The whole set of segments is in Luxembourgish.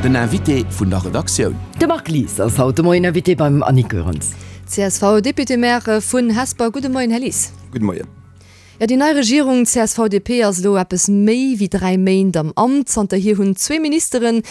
Den Invité vun der Redaktioun. De Marc Lies ass haut de Moien Invité beim Annick Goerens. CSV-Député-Maire vun Hesper. Gudde Moien, Här Lies. Gudde Moien. Jo, déi nei Regierung CSV-DP ass elo eppes méi wéi 3 Méint am Amt. Zanterhier hunn zwee Ministere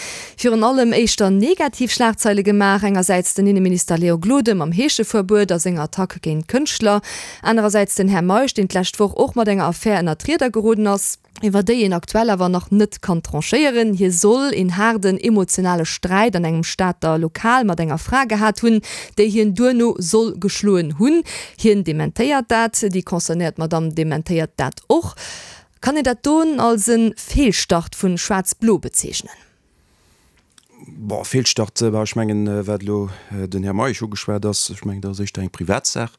virun allem éischter negativ Schlagzeile gemaach. Engersäits den Inneminister Léon Gloden mam Heescheverbuet a senger Attack géint Kënschtler, anerersäits den Här Meisch, deen d'lescht Woch och mat enger Affär ënner d'Rieder geroden ass, iwwer déi een aktuell awer nach net kann tranchéieren. Hie soll een haarden emotionale Sträit an engem Stater Lokal mat enger Fra gehat hunn, déi hien duerno soll geschloen hunn. Hien dementéiert dat, déi concernéiert Madamm dementéiert dat och. Kann een dat don als e Feelstart vun Schwaarz-Blo bezeechnen? Bon, Feelstart, bah, ech mengen, wat elo den Här Meisch ugeschwat ass, ech mengen, dat ass éischter eng Privatsaach.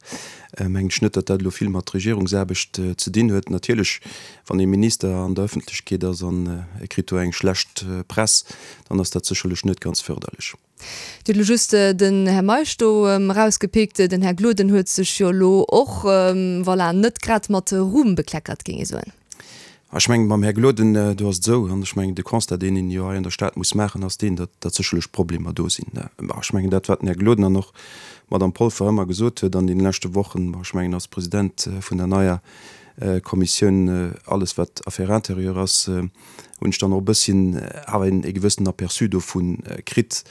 Mengen ech net, datt dat elo vill mat Regierungsaarbecht ze dinn huet. Natierlech, wann ee Minister an der Ëffentlechkeet ass an e kritt do eng schlecht Press, dann ass dat sécherlech net ganz fërderlech. Dir hutt elo just den Här Meisch do erausgepickt. Den Här Gloden huet sech jo elo och, voilà, net grad mat Ruhm bekleckert, géing ee soen. Ech mengen, mam Här Gloden, do ass et esou, an ech mengen, de Constat, deen een jo hei an der Stad muss maachen, ass deen, datt, datt sécherlech Problemer do sinn. Ech mengen, dat, wat den Här Gloden an och d'Madame Polfer ëmmer gesot huet an deene leschte Wochen, ech mengen, als President vun der neier Kommissioun, alles wat Affaires intérieures ass, hunn ech dann och e bësschen awer een e gewëssenen Aperçu dovu kritt.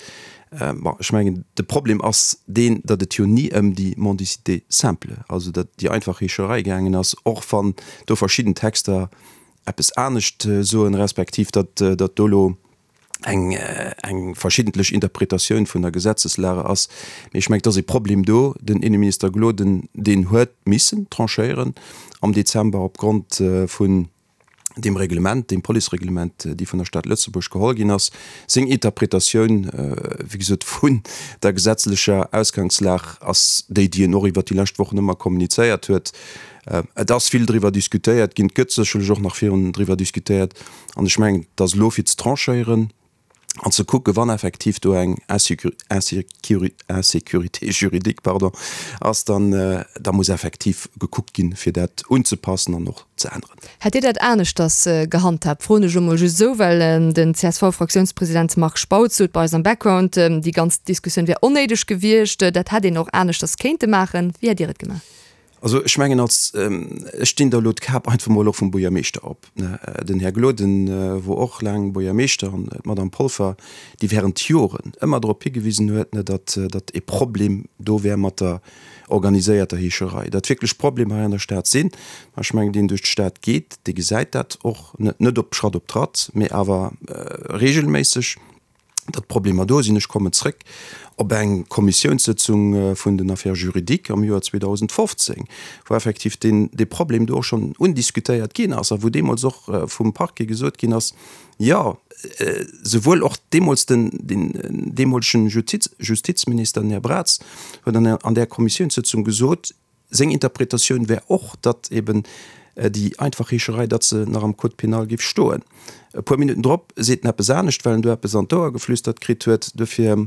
Bon, ech mengen, de Problem ass deen, datt et jo ni ëm déi Mendicité simple, also dat déi einfach Heescherei gaangen ass, och wann do verschidden Texter eppes anescht soen, respektiv datt datt do elo eng eng verschiddentlech Interpretatioun vun der Gesetzeslage ass. Mee ech mengen, et ass e Problem do. Den Inneminister Gloden, deen huet missen tranchéieren am Dezember opgrond vun deem Reglement, deem Policereglement, déi vun der Stad Lëtzebuerg geholl ginn ass, seng Interpretatioun, wéi gesot, vun der gesetzlecher Ausgangslag ass déi, déi en och iwwert déi lescht Wochen ëmmer kommunizéiert huet. Et ass vill driwwer diskutéiert ginn, et gëtt sécherlech och nach virun driwwer diskutéiert an ech mengen, et ass elo fir ze tranchéieren an ze kucken, wann effektiv do eng Insécurité juridique, pardon, ass, dann da muss effektiv gekuckt ginn, fir dat unzepassen an och ze änneren. Hätt Dir dat aneschters gehandhaabt, froen ech elo mol just esou, well den CSV-Fraktiounspresident Marc Spautz sot bei eis am Background, déi ganz Diskussioun wär onnéideg gewiescht, dat hätt een och aneschters kéinte maachen. Wéi hätt Dir et gemaach? Also ech mengen als, ech dinn der elo d'Kap einfach mol och vum Buergermeeschter op, ne, den Här Gloden wor och laang Buergermeeschter an d'Madame Polfer, déi während Joren ëmmer drop higewisen huet, ne, datt, datt e Problem do wär mat der organiséierter Heescherei, datt wierklech Problemer hei an der Stad sinn. Ech mengen, deen duerch d'Stad geet, dee gesäit dat och, net, net op Schratt op Tratt, mee awer regelméisseg. datt Problemer do sinn. Ech kommen zrëck op eng Kommissiounssëtzung vun den Affaires juridiques am Joer 2015, wou effektiv deen, dee Problem do och schonn undiskutéiert ginn ass a wou deemools och vum Parquet gesot ginn ass, jo, souwuel och deemools den, den deemolegen Justiz, Justizminister, den Här Braz, huet an, an där Kommissiounssëtzung gesot, Seng Interpretatioun wär och, datt eben déi einfach Heescherei, datt se nach am Code pénal géif stoen. E puer Minutten drop seet en eppes anescht, well en do eppes an d'Ouer geflüstert kritt huet. Dofir,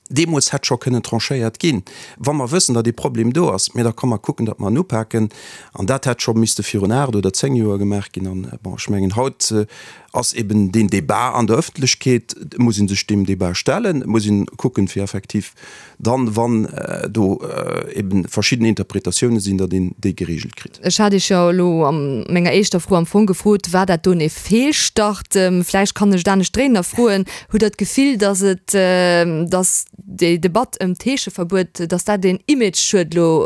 deemools hätt scho kënnen tranchéiert ginn, wa mer wëssen, datt ee Problem do ass, mä da komm mer kucken, datt mer en upaken. An dat hätt scho misste virun 8 oder 10 Joer gemaach ginn. An, bon, ech mengen, haut ass eben deen Débat an der Ëffentlechkeet, et muss ee sech deem Débat stellen, et muss ee kucken, fir effektiv dann, wann do eben verschidden Interpretatiounen sinn, datt een déi geregelt kritt. Ech hat Iech jo elo a menger éischter Fro am Fong gefrot, War dat doen ee Feelstart? Vläicht kann ech et anescht dréinen a froen, Hutt Der d'Gefill, datt et, datt déi Debatt ëm d'Heescheverbuet, datt dat een Imageschued elo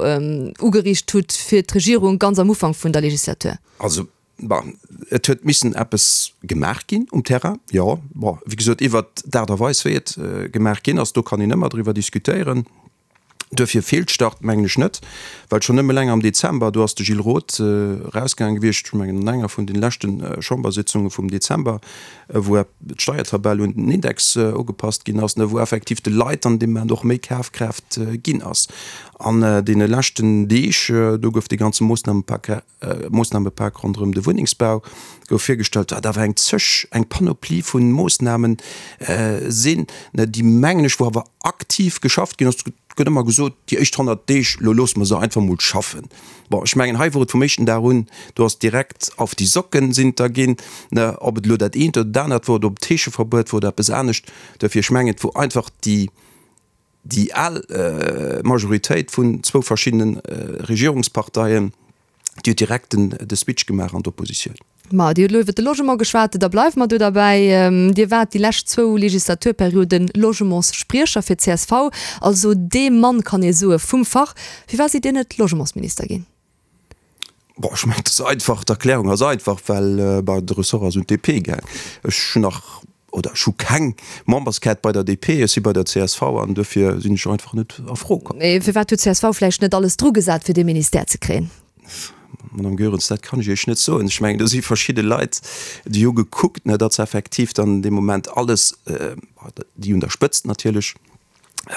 ugeriicht hutt fir d'Regierung ganz am Ufank vun der Legislatur? Also Bon, et huet missen eppes gemaach ginn um Terrain, jo. Bon, wéi gesot, iwwert d'Aart a Weis, wéi et gemaach ginn ass, do kann een ëmmer driwwer diskutéieren. Duerfir Feelstart mengen ech net, well schonn nëmme eleng am Dezember, do ass de Gilles Roth erausgaange gewiescht, ech mengen an enger vun de leschte Chambersitzunge vum Dezember, wou d'Steiertabell un den Index ugepasst ginn ass, wou effektiv de Leit an deem Moment och méi Kafkraaft ginn ass. An deene leschten Deeg, do gouf dee ganze Moossnamepak Moossnamepak ronderëm de Wunnengsbau gouf virgestallt, wat awer eng zeg, eng Panoplie vu Moossnamen sinn, déi, mengen ech, wou awer. aktiv geschafft ginn ass. Et gëtt ëmmer gesot, déi éischt 100 Deeg, lo loosse mer se einfach mol schaffen. Bon, ech mengen, hei wor et vum éischten Dag un, do ass direkt auf die Socken sinn et der ginn, ne, ob et elo dat eent oder dat anert wor, oder ob et d'Heescheverbuet wor oder eppes anescht. Duerfir, ech mengen, et wor einfach déi, déi al Majoritéit vun zwou verschiddene Regierungsparteien, déi huet direkt den, de Switch gemaach an d'Oppositioun. Ma Dir hutt elo iwwert de Logement geschwat, da bleiwe mer do derbäi. Dir waart déi lescht zwou Legislaturperioden Logementsspriecher fir d'CSV, also dee Mann, kann ee soe, vum Fach. Firwat sidd Dir net Logementsminister ginn? Bon, ech mengen, et ass einfach, d'Erklärung ass einfach, well, bah, de Ressort ass un d'DP gaang. Ech hunn nach, oder ech hu keng Memberskaart bei der DP, ech si bei der csv an duerfir sinn ech einfach net a Fro komm. Mee firwat huet d'CSV vläicht net alles drugesat, fir dee Ministère ze kréien? Madame Goerens, dat kann ech Iech net soen. Ech mengen, do si verschidde Leit, déi hu gekuckt, ne, datt se effektiv dann dee Moment alles, déi un der Spëtzt natierlech,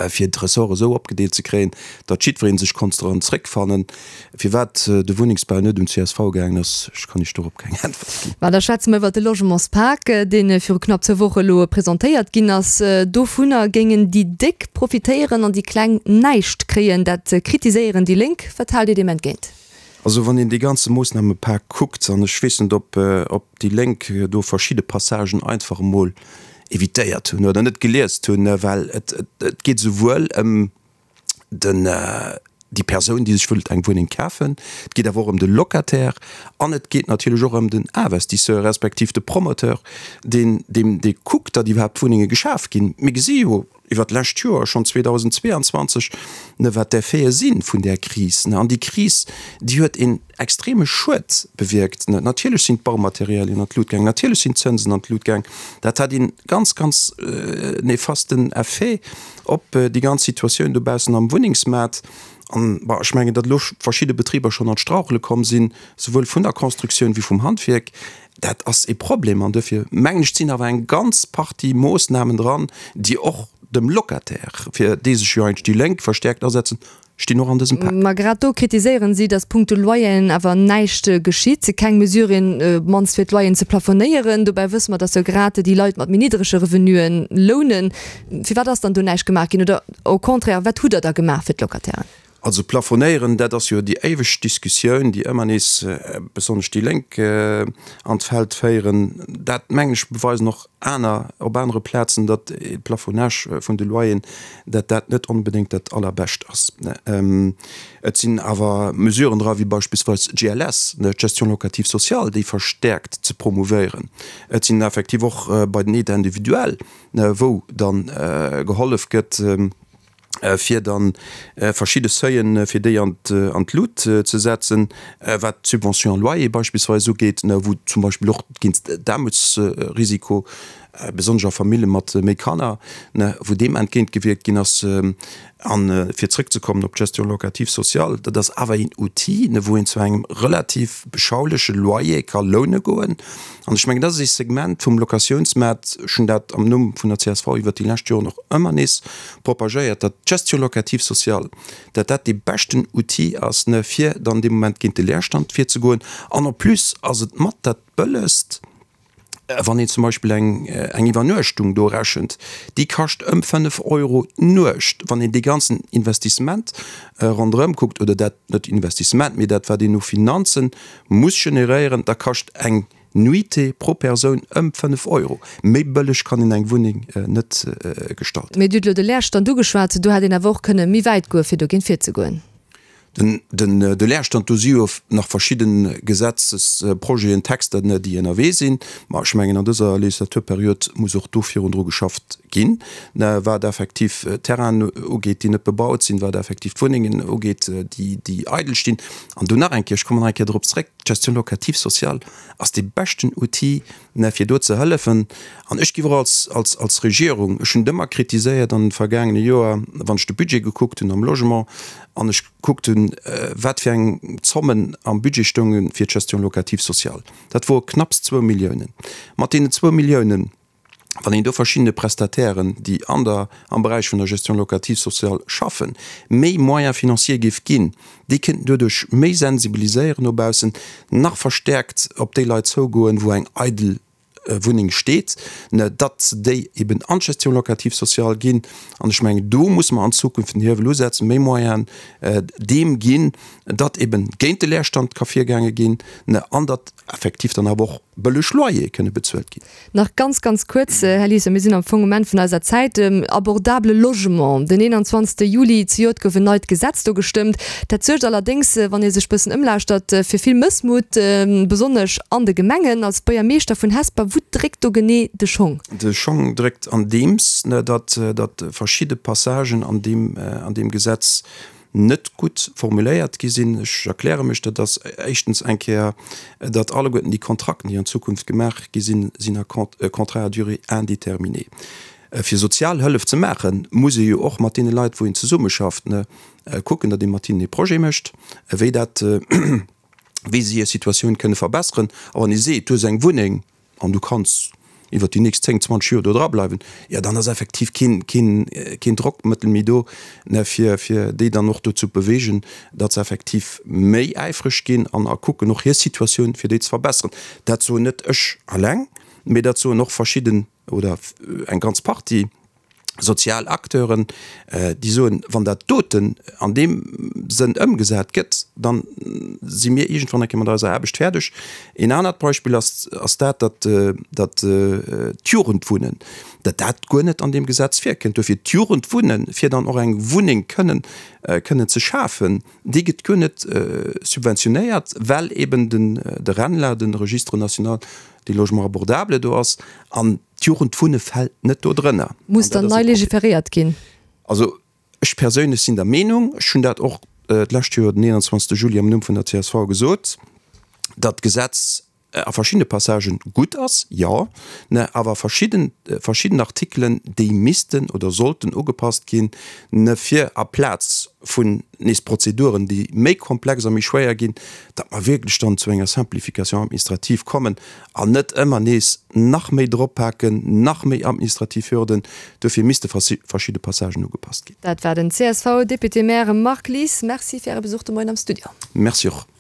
fir d'Ressorte esou opgedeelt ze kréien, datt jiddweree sech konnt dran zréckfannen. Firwat de Wunnengsbau net un csv gaangen ass, ech kann Iech dorop keng Äntwert ginn. Mä da schwätze mer iwwert de Logementspak, dee viru knapp zwou Woche elo presentéiert ginn ass. Dovunner géingen déi Déck profitéieren an déi Kleng näischt kréien. Dat kritiséieren déi Lénk. Wat haalt Dir deem entgéint? Also wann een dee ganze Moossnamepak kuckt, an ech weess net, ob déi Lénk do verschidde Passagen einfach emol evitéiert hunn oder net geliest hunn, well et geet esouwuel ëm den, déi Persoun, déi sech wëllt eng Wunneng kafen, et geet awer och ëm de Locataire an et geet natierlech och ëm den Investisseur respektiv de Promoteur, deen, deen, dee kuckt, datt iwwerhaapt Wunnenge geschaf ginn. Mir gesi jo iwwert d'lescht Joer, schonn 2022, ne, wat d'Effete si vun där Kris. Ne, an déi Kris, déi huet een extreme Schued bewierkt. Ne, natierlech sinn d'Baumaterialien an d'Lut gaang, natierlech sinn d'Zënsen an d'Lut gaang. Dat hat een ganz, ganz nefasten Effet op déi ganz Situatioun dobaussen am Wunnengsmaart. An, bon, ech mengen, datt elo verschidde Betriber schonn an d'Strauchele komm sinn, souwuel vun der Constructioun wéi vum Handwierk, Dat ass e Problem an duerfir mengen ech, sinn awer eng ganz Partie Moossnamen dran, déi och dem Locataire, fir dee sech jo eigentlech déi Lénk verstäerkt asetzen, stinn och an dësem Pak. Ma grad do kritiséieren si, datt punkto Loyeren awer näischt geschitt, keng Mesuren, op d'mannst fir d'Loyeren ze plafonéieren. Dobäi wësse mer, datt jo grad déi Leit mat méi niddrege Revenuen lounen. Firwat ass dann do näischt gemaach ginn? Oder au contraire, wat hutt Der da gemaach fir d'Locatairen? Also plafonéieren, dat ass jo déi éiweg Diskussioun, déi ëmmer nees besonnesch déi Lénk an d'Feld féieren. Dat, mengen ech, beweisen och aner op anere Plazen, datt e Plafonnage vun de Loyeren, datt dat net onbedéngt dat Allerbescht ass. Et sinn awer Mesuren dra wéi beispillsweis d'GLS, d'Gestion locative sociale, déi verstäerkt ze promouvéieren. Et sinn effektiv och bei den Aides individuelles, wou dann gehollef gëtt, fir dann verschidde Seuilen, fir déi an d'Lut ze setzen, wat d'Subvention loyer beispillsweis ugeet, wou zum Beispill och géint d'Aarmutsrisiko, besonnesch a Famille mat méi Kanner, wou deem entgéintgewierkt ginn ass. A fir zrëckzekommen op d'Gestion locative sociale, dat ass awer een Outil, wou een zu engem relativ beschauleche Loyer ka loune goen. An ech mengen, dat ass ee Segment vum Locatiounsmaart, ech hunn dat am Numm vun der csv iwwert déi lescht Joren och ëmmer nees propagéiert, datt d'Gestion locative sociale, datt dat dee beschten Outil ass, ne, fir dann dee Moment géint de Leerstand virzegoen. An en plus ass et mat dat bëllegst, wann een zum Beispill eng, eng Iwwernuechtung do rechent, déi kascht ëm 5 Euro d'Nuecht, wann een dee ganzen Investissement ronderëm kuckt, oder dat, net Investissement, mee dat wat een u Finanzen muss generéieren, da kascht eng Nuitée pro Persoun ëm 5 Euro. Méi bëlleg kann een eng Wunneng net gestalten. Mee Dir hutt elo de Leerstand ugeschwat. Do hätt een awer och kënne méi wäit goe fir dogéint virzegoen. De Leerstand, do si jo nach verschidde Gesetzesprojeten, Texter, déi ënnerwee sinn. Ma ech mengen, an dëser Legislaturperiod muss och do virun dru geschafft ginn, wat effektiv Terrainen ugeet, déi net bebaut sinn, wat effektiv d'Wunnengen ugeet, déi eidel stinn. An do nach eng Kéier, ech kommen nach eng Kéier drop zréck, d'Gestion locative sociale ass dee beschten Outil, fir do ze hëllefen. An ech géif och als, als, als Regierung, ech hunn et ëmmer kritiséiert an de vergaangene Joer, wann ech de Budget gekuckt hunn am Logement an ech gekuckt hunn, wat fir eng Zommen am Budget stounge fir d'Gestion locative sociale, dat wore knapps zwou Milliounen. Mat deenen zwou Milliounen, wann een do verschiddene Prestatairen, déi an der, am Beräich vun der Gestion locative sociale schaffen, méi Moyens financiers géif ginn, déi kéinten doduerch méi sensibiliséieren no baussen, nach verstäerkt op déi Leit zougoen, wou eng eidel. Wunneng steet, datt se déi eben an d'Gestion locative sociale ginn. An ech mengen, do musse mer an Zukunft den Hiewel usetzen, méi Moyenen deem ginn, datt eben géint de Leerstand ka virgaange ginn an datt effektiv dann awer och bëlleg Loyere kënne bezuelt ginn. Nach ganz, ganz kuerz, Här Liesen, mir sinn am Fong um Enn vun eiser Zäit. Abordable Logement, Den 21. Juli zejoert gouf en neit Gesetz do gestëmmt. Dat suergt allerdéngs, wann ee sech bëssen ëmlauschtert, fir vill Mëssmut, besonnesch an de Gemengen. Als Buergermeeschter vun Hesper, wou dréckt do genee de Schong? De Schong dréckt andeems, datt verschidde Passagen an deem Gesetz net gutt formuléiert gi sinn. Ech erkläre mech, Dat ass éischtens eng Kéier, datt alleguerten déi Kontrakten, déi an Zukunft gemaach gi sinn, sinn a Contrats à durée indéterminée. Fir sozial Hëllef ze maachen, muss ee jo och mat deene Leit, wou een zesummeschafft, kucken, datt ee mat hinnen ee Projet mécht, wéi dat, wéi se hir Situatioun kënne verbesseren. A wann ee seet, du hues eng Wunneng, an du kanns iwwert déi nächst 10, 20 Joer do dra bleiwen, jo dann ass effektiv keen, keen, keen Drockmëttel méi do, ne, fir, fir déi dann och dozou bewegen, datt se effektiv méi äifreg ginn an a kucken och hir Situatioun fir déi ze verbesseren. Dat soen net ech alleng, mee dat soen och verschidden oder eng ganz Partie. Sozial Acteuren, déi soen, wann dat doten an deem Sënn ëmgesat gëtt, da si mir iergendwann eng Kéier mat eiser Aarbecht fäerdeg. Een anert Beispill ass, ass dat, datt, datt d'Jugendwunnen, datt dat guer net an deem Gesetz virkënnt. Dofir d'Jugendwunnen, fir dann och eng Wunneng kënnen, kënnen ze schafen, déi gëtt guer net subventionéiert, well eben den, de RENLA, de Registre national des logements abordables do ass. An D'Jugendwunne fält net do drënner. Muss dann nei legiferéiert ginn? Also ech perséinlech sinn der Meenung, ech hunn dat och d'lescht Joer den 21. Juli am Numm vun der csv gesot, datt d'Gesetz a verschiddene Passagen gutt ass, jo, ne, awer verschidden, verschidden Artikelen, déi missten oder sollten ugepasst ginn, ne, fir aplaz vun nees Prozeduren, déi méi komplex a méi schwéier ginn, datt mer wierklech dann zu enger Simplification administrative kommen an net ëmmer nees nach méi droppaken, nach méi administrativ Hürden. Duerfir misste verschidde Passagen ugepasst ginn. Dat war den CSV-Député-Maire Marc Lies. Merci fir Äre Besuch de Moien am Studio. Merci och.